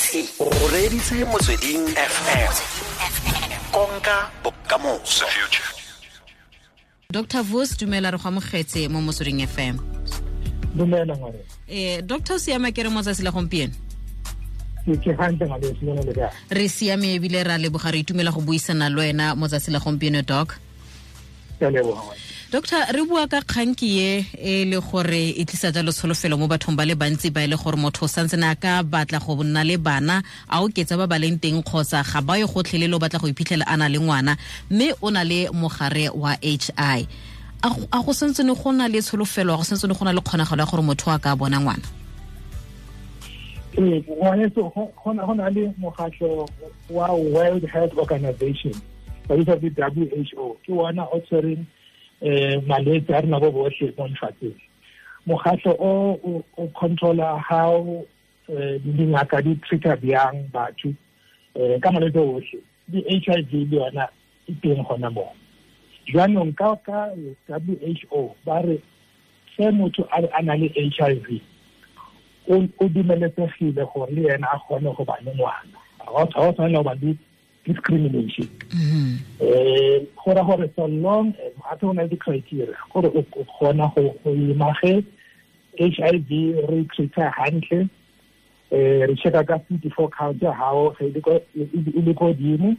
O reditse Motsweding FM. Konka bokamoso. Dr. Vos, dumela, re go amogetse mo Motsweding FM. Dumela ngwane. Dr. o siama ke re mo tsatsi la gompieno? Ke hantle ngwane, le le kae? Re siame ebile ra leboga, re itumela go buisana le wena mo tsatsi la gompieno, Doc. Ke a leboga ngwane. Doctor, re bua ka kganki ye e le gore e tlisa jalo tsholofelo mo bathong ba le bantsi ba e le gore motho o santse a ka batla go nna le bana, a oketsa ba ba leng teng kgotsa ga ba ye gotlhelele, o batla go iphitlhela a na le ngwana mme o na le mogare wa HI. A go santse ne go na le tsholofelo, a go santse ne go na le kgonagalo ya gore motho a ka bona ngwana? Ee, ngwaneso, go na le mokgatlho wa World Health Organization, ba bitsa ke WHO, ke ona o tshwereng malwetse a rena bo botlhe mo lefatsheng. Mokgatlho o controla how dingaka di treata bjang batho ka malwetse otlhe. Di HIV le yona e teng gona moo. Jaanong ka WHO ba re se motho a na le HIV o dumeletsegile gore le ena a kgone go ba le ngwana. Ga o tshwanela go ba le discrimination. Go ra gore so long as gape go na le di-criteria gore o kgona go ima ge HIV re treata hantle, re checka ka CD4 count ya gago ge e le ko godimo,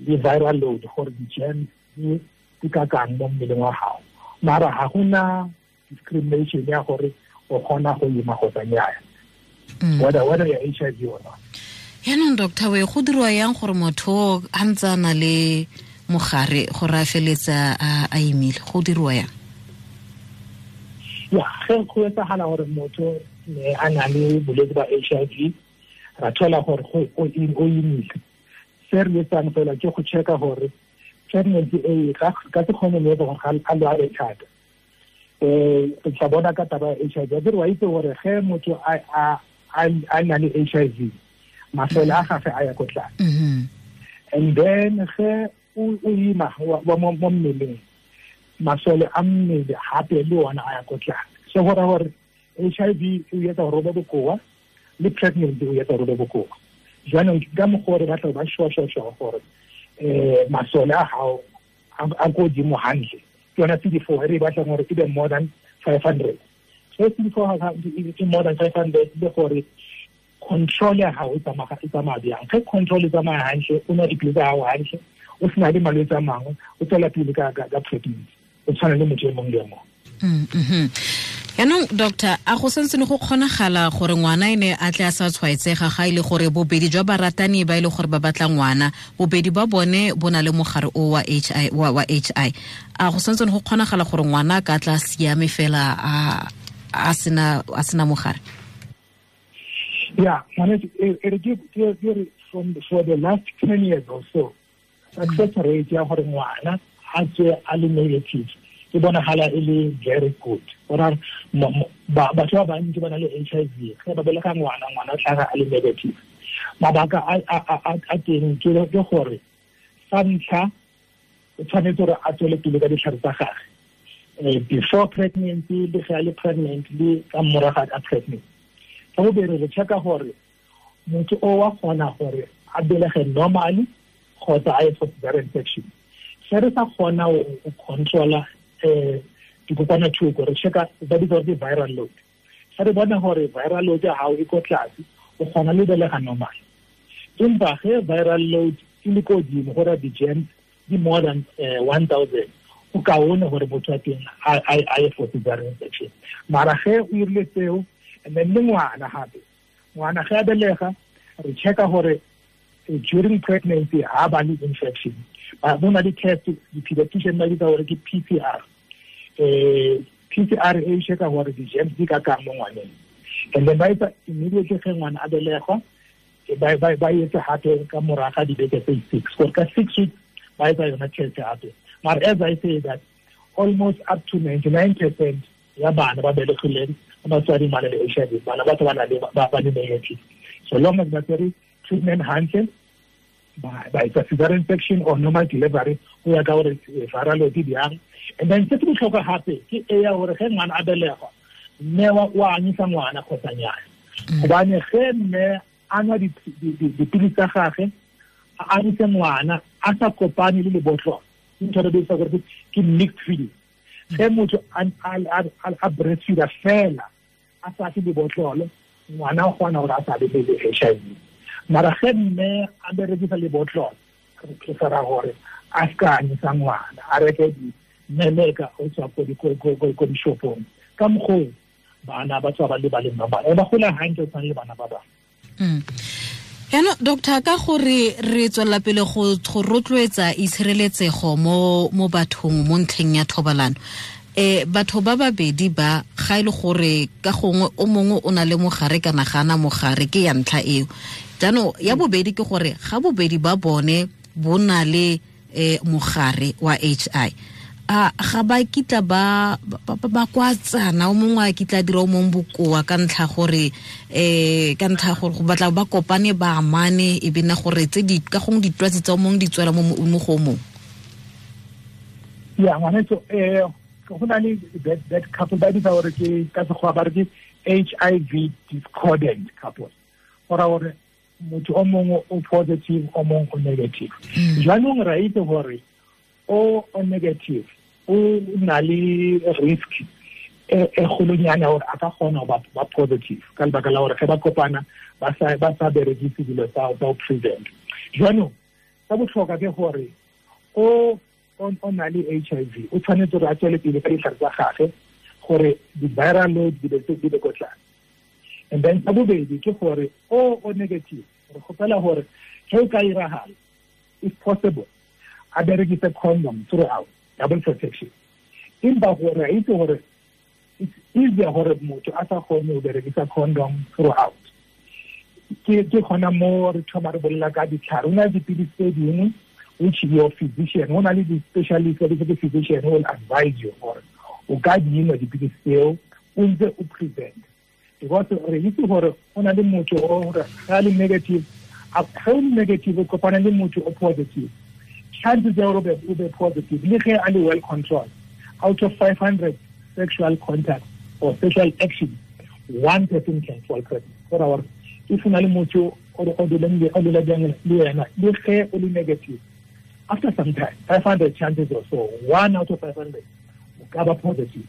le viral load gore di-germs di ka kang mo mmeleng wa gago. Mara ga gona discrimination ya gore o kgona go ima kgotsa nnyaa, whether ya HIV or not. Yaanong doctor, we go dirwa yang gore motho a ntse a na le mogare gore a feletsa a imile, go dirwa yang? Ya, ge go etsagala gore motho ne a na le bolwetse ba HIV, ra thola gore o imile, se re etsang fela ke go checka gore pregnancy e ka se kgone le gore a lwale thata. Re tla bona ka taba ya HIV. Akere wa itse gore ge motho a na le HIV, masole a gagwe a ya ko tlase. And then ge o ima mo mmeleng, masole a mmele gape le ona a ya ko tlase. So go raya gore HIV e etsa gore o be bokoa, le pregnancy o etsa gore o be bokoa. Jaanong ka mokgwa o re batla ba sure gore masole a gago a ko godimo hantle. Ke yona CD4 e re batlang gore e be more than 500. So CD4 e more than 500 le gore control ya gago e tsamaya bjang. Ge control e tsamaya hantle, o nwa dipilisi tsa gago hantle, o sena le malwetse a mangwe, o tswela pele ka pregnancy, o tshwana le motho e mongwe le mongwe. Yaanong doctor, a go santse ne go kgonagala gore ngwana ene a tle a sa tshwaetsega ga e le gore bobedi jwa baratani ba e le gore ba batla ngwana, bobedi ba bone bo na le mogare o wa HI wa HI, a go santse ne go kgonagala gore ngwana a ka tla siame fela a sena mogare? Yeah, for the last 10 years or so, success rate ya gore ngwana a tswe a le negative e bonagala e le very good. Gore batho ba bantsi ba na le HIV, ge ba belega ngwana, ngwana o tlhaga a le negative. Mabaka a teng ke gore sa ntlha o tshwanetse gore a tswele pele ka ditlhare tsa gagwe before pregnancy, le ge a le pregnant, le ka morago ga pregnancy. Sa bobedi, re checka gore motho o wa kgona gore a belege normally kgotsa a ye for cesarean section. Se re sa kgona go controla dikokwanatlhoko, re checka ba bitsa gore ke viral load. Se re bona gore viral load ya gago e ko tlase, o kgona le belega normal. Empa ge viral load e le ko godimo, gore di-germs di more than 1000, o kaone gore motho wa teng a ye for cesarean section. Mara ge o irile tseo, and then le ngwana gape, ngwana ge a belega, re checka gore during pregnancy ha ba le infection. Bo na le test, di-pediatrician ba bitsa gore ke PCR. PCR e checka gore di-germs di ka kang mo ngwaneng. And then ba etsa immediately ge ngwana a belegwa, ba etsa gape ka morago ga dibeke tse 6, gore ka 6 weeks ba etsa yona test gape. Mara as I say that, almost up to 99% ya bana ba belegileng ba batswadi ba na le HIV, bana ba ba na le ba le negative. So long as ba tsere treatment hantle, ba etsa cesarean section or normal delivery, go ya ka gore viral load e bjang. And then se se botlhokwa gape ke e ya gore ge ngwana a belegwa, mme wa anyisa ngwana kgotsa nnyaa. Gobane ge mme a nwa dipilisi tsa gagwe, a anyise ngwana a sa kopane le lebotlolo. Ntho re bitsa gore ke mixed feeding. Ge motho a breastfeeda fela a sa fe lebotlolo, ngwana o kgona gore a sa be le HIV. Mara ge mme a berekisa lebotlolo, re prefera gore a ska anyisa ngwana, a reke dimeleka o tswa ko dishopong. Ka mokgwa bana ba tswa ba le ba le normal, ba gola hantle tshwana le bana ba bangwe. Yaanong doctor, ka gore re tswelela pele go rotloetsa itshireletsego mo bathong mo ntlheng ya thobalano, batho ba babedi ba ga ile gore ka gongwe o mongwe o na le mogare kana ga ana mogare, ke ya ntlha eo. Jaanong ya bobedi ke gore ga bobedi ba bone bo na le mogare wa HI, a ga ba kitla ba kwatsana, o mongwe a kitla dira o mongwe bokoa ka ntlha gore ka ntlha gore go batla ba kopane ba amane, e be nna gore tse di ka gongwe ditwatsi tsa o mongwe di tswela mo go o mongwe. Ya ngwanetso, go na le that couple ba bitsa gore ke ka Sekgowa ba re ke HIV discordant couple, go raya gore motho o mongwe o positive, o mongwe o negative. Jaanong re a itse gore o negative o na le risk e kgolonyana gore a ka kgona go ba positive ka lebaka la gore ge ba kopana ba sa berekise dilo tsa go prevent. Jaanong sa botlhokwa ke gore o na le HIV o tshwanetse gore a tswele pele ka ditlhare tsa gagwe gore di-viral load di be ko tlase. And then sa bobedi ke gore o negative, re kgopela gore ge o ka iragala, if possible, a berekise condom throughout, double protection. Empa gore a itse gore it's easier gore motho a sa kgone go berekisa condom throughout. Ke gona mo re thoma re bolela ka ditlhare. Go na le dipilisi tse dingwe which your physician, go na le di-specialist, the physician will advise you gore o ka di nwa dipilisi tseo o ntse o prevent. Because re itse gore go na le motho o gore ga le negative, ga o le negative o kopana le motho o positive, chances are o be positive le ge a le well controlled. Out of 500 sexual contacts or sexual actions, one person can fall pregnant. Go raya gore if o na le motho o dulang le yena, le ge o le negative, after some time, 500 chances or so, 1 out of 500 o ka ba positive.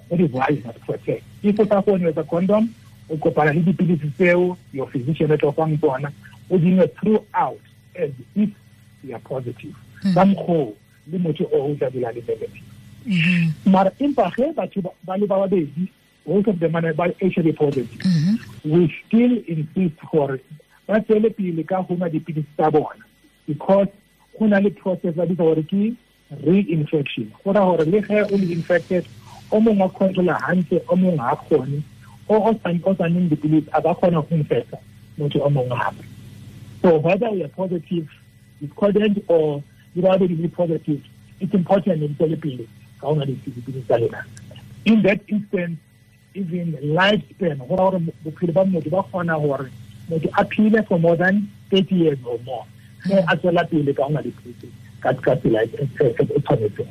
That is why you must protect. If o sa kgone ho etsa condom, o kopana le dipilisi tseo your physician o tla fang tsona, o di nwe throughout as if you are positive. Ka mokgwa le motho o tla dula le negative. Mara empa ge batho ba le ba babedi, both of them are ba HIV positive, we still insist gore ba tswele pele ka go nwa dipilisi tsa bona, because go na le process ba bitsa gore ke reinfection. Go raya gore le ge o le infected, o mongwe a controla hantle, o mongwe ha kgone, o sa nweng dipilisi a ka kgona go infecta motho o mongwe hape. So whether we are positive, discordant, or you are already positive, it's important in tswele pele ka go nwa dipilisi tsa lena. In that instance, even lifespan, go raya gore bophelo ba motho ba kgona gore motho a phele for more than 30 years or more, ge a tswela pele ka go nwa dipilisi ka tsela e tshwanetseng.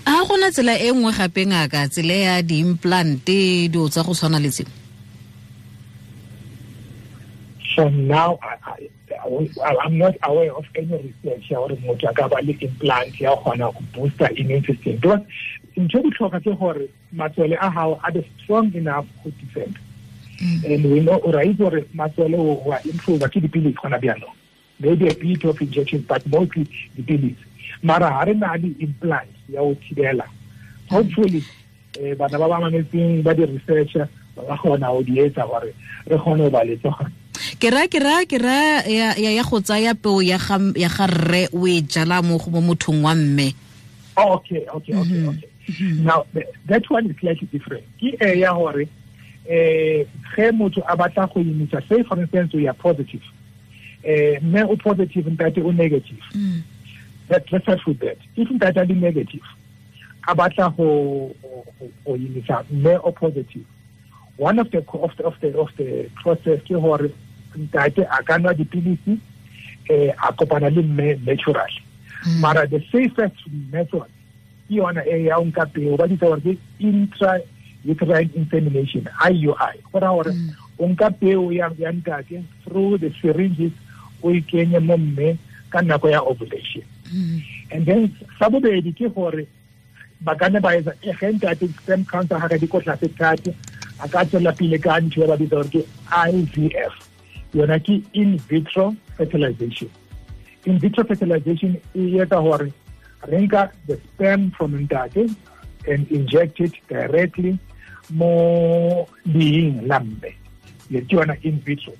A gona tsela e nngwe gape ngaka, tsela ya di-implant, dilo tsa go tshwana le tseo? So now I'm not aware of any research ya gore motho a ka ba le implant ya kgona go booster immune system, because ntho e botlhokwa ke gore matswele a gago a be strong enough go defend. And we know, ra itse gore matswele o a improve ke dipilisi gona bjanong, maybe a bit of injection, but mostly dipilisi. Mara ha re na le implant ya go thibela, hopefully bana ba ba mametseng ba di-researcher ba ka kgona go di etsa gore re kgone go ba le tsona. Ke ra ya go tsaya peo ya ga rre o e jala mo go mothong wa mme. Okay. Now that one is slightly different. Ke e ya gore ge motho a batla go imisa, say for instance we are positive, mme o positive, ntate o negative. Let's start with that. If ntate a le negative, a batla go imisa mme o positive, one of the process ke gore ntate a ka nwa dipilisi, a kopana le mme naturally. Mara the safest method ke yona e ya o nka peo, ba bitsa gore ke intrauterine insemination, IUI. Go raya gore o O nka peo ya ntate through the syringes, o e kenye mo mme ka nako ya ovulation. And then sa bobedi ke gore ba ka nna ba etsa ge ntate sperm count ya gagwe di ko tlase thata, a ka tswela pele ka ntho e ba bitsa gore ke IVF. Yona ke in vitro fertilization. In vitro fertilization e etsa gore re nka the sperm from ntate and inject it directly mo leeng la mme. Ke yona in vitro.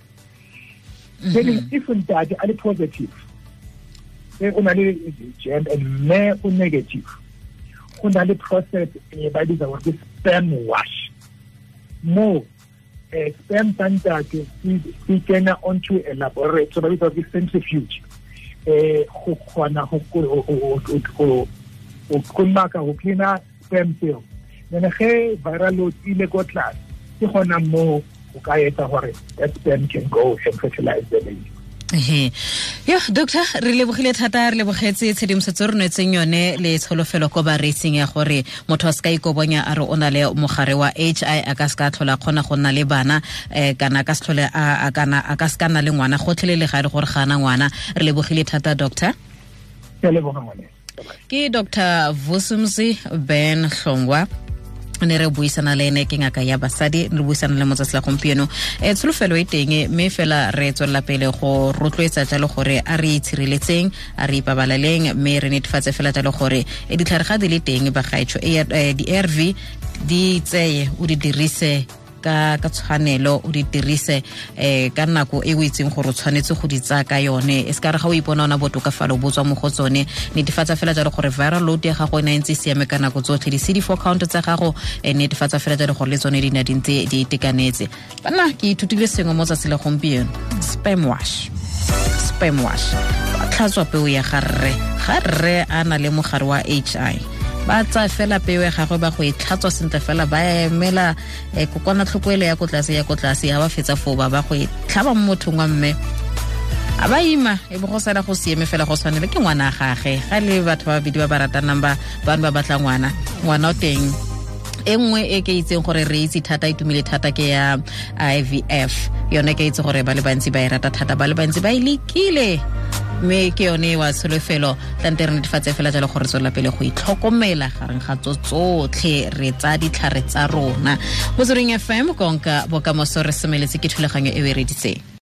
Then if ntate a le positive, o na le germ and mme o negative, go na le process e ba bitsa gore ke sperm wash. Mo sperm tsa ntate se kena onto a laboratory, ba bitsa gore ke centrifuge, go kgona go kolomaka, go cleana sperm cell. Then ge viral load ile ko tlase, ke gona mo o ka etsa gore that sperm can go and fertilize the baby. Yo, doctor, re lebogile thata, re lebogetse tshedimosetso re nwetseng yone le tsholofelo ko bareetsing ya gore motho a se ka ikobonya a re o na le mogare wa HI, a ka se ka tlhola kgona go nna le bana, kana ka se tlhole a kana a ka se ka nna le ngwana gotlhelele ga e le gore ga ana ngwana. Re lebogile thata, doctor. Ke leboga ngwane. Ke Dr. Vusumzi Ben Hlongwa, ne re buisana le ene, ke ngaka ya basadi, re buisana le motsatsi la gompieno. Tsholofelo e teng, mme fela re tswelela pele go rotloetsa jalo gore a re itshireletseng, a re ipabaleleng, mme re netefatse fela jalo gore ditlhare ga di le teng bagaetsho, di-ARV di tseye, o di dirise ka tshwanelo, o di dirise ka nako e o itseng gore o tshwanetse go di tsaya ka yone. E se ka re ga o ipona ona botokafalo bo tswa mo go tsone. Netefatsa fela jalo gore viral load ya gago e ne ntse e siame ka nako tsotlhe, di-CD4 count tsa gago netefatsa fela jalo gore le tsone di ne di ntse di itekanetse. Banna, ke ithutile sengwe mo tsatsi la gompieno. Sperm wash, sperm wash, ba tlhatswa peo ya ga rre, ga rre a na le mogare wa HI, ba tsaya fela peo ya gagwe ba go e tlhatswa sentle fela, ba emela kokwanatlhoko ele ya ko tlase, ya ko tlase, ha ba fetsa foo ba go e tlhaba mo mothong wa mme, a ba ima, e bo go sala go siame fela go tshwanele ke ngwana gage. Ga le batho ba babedi ba ba ratanang ba bane ba batla ngwana, ngwana o teng. E nngwe e ke itseng gore re itse thata, e tumile thata, ke ya IVF. Yone ke itse gore ba le bantsi ba e rata thata, ba le bantsi ba e lekile, mme ke yone wa tsholofelo. Tlante re netefatse fela jalo gore tswela pele go itlhokomela gareng ga tso tsotlhe, re tsa ditlhare tsa rona. Motsweding FM, konka bokamoso, re semeletse ke thulaganyo e o e reditseng.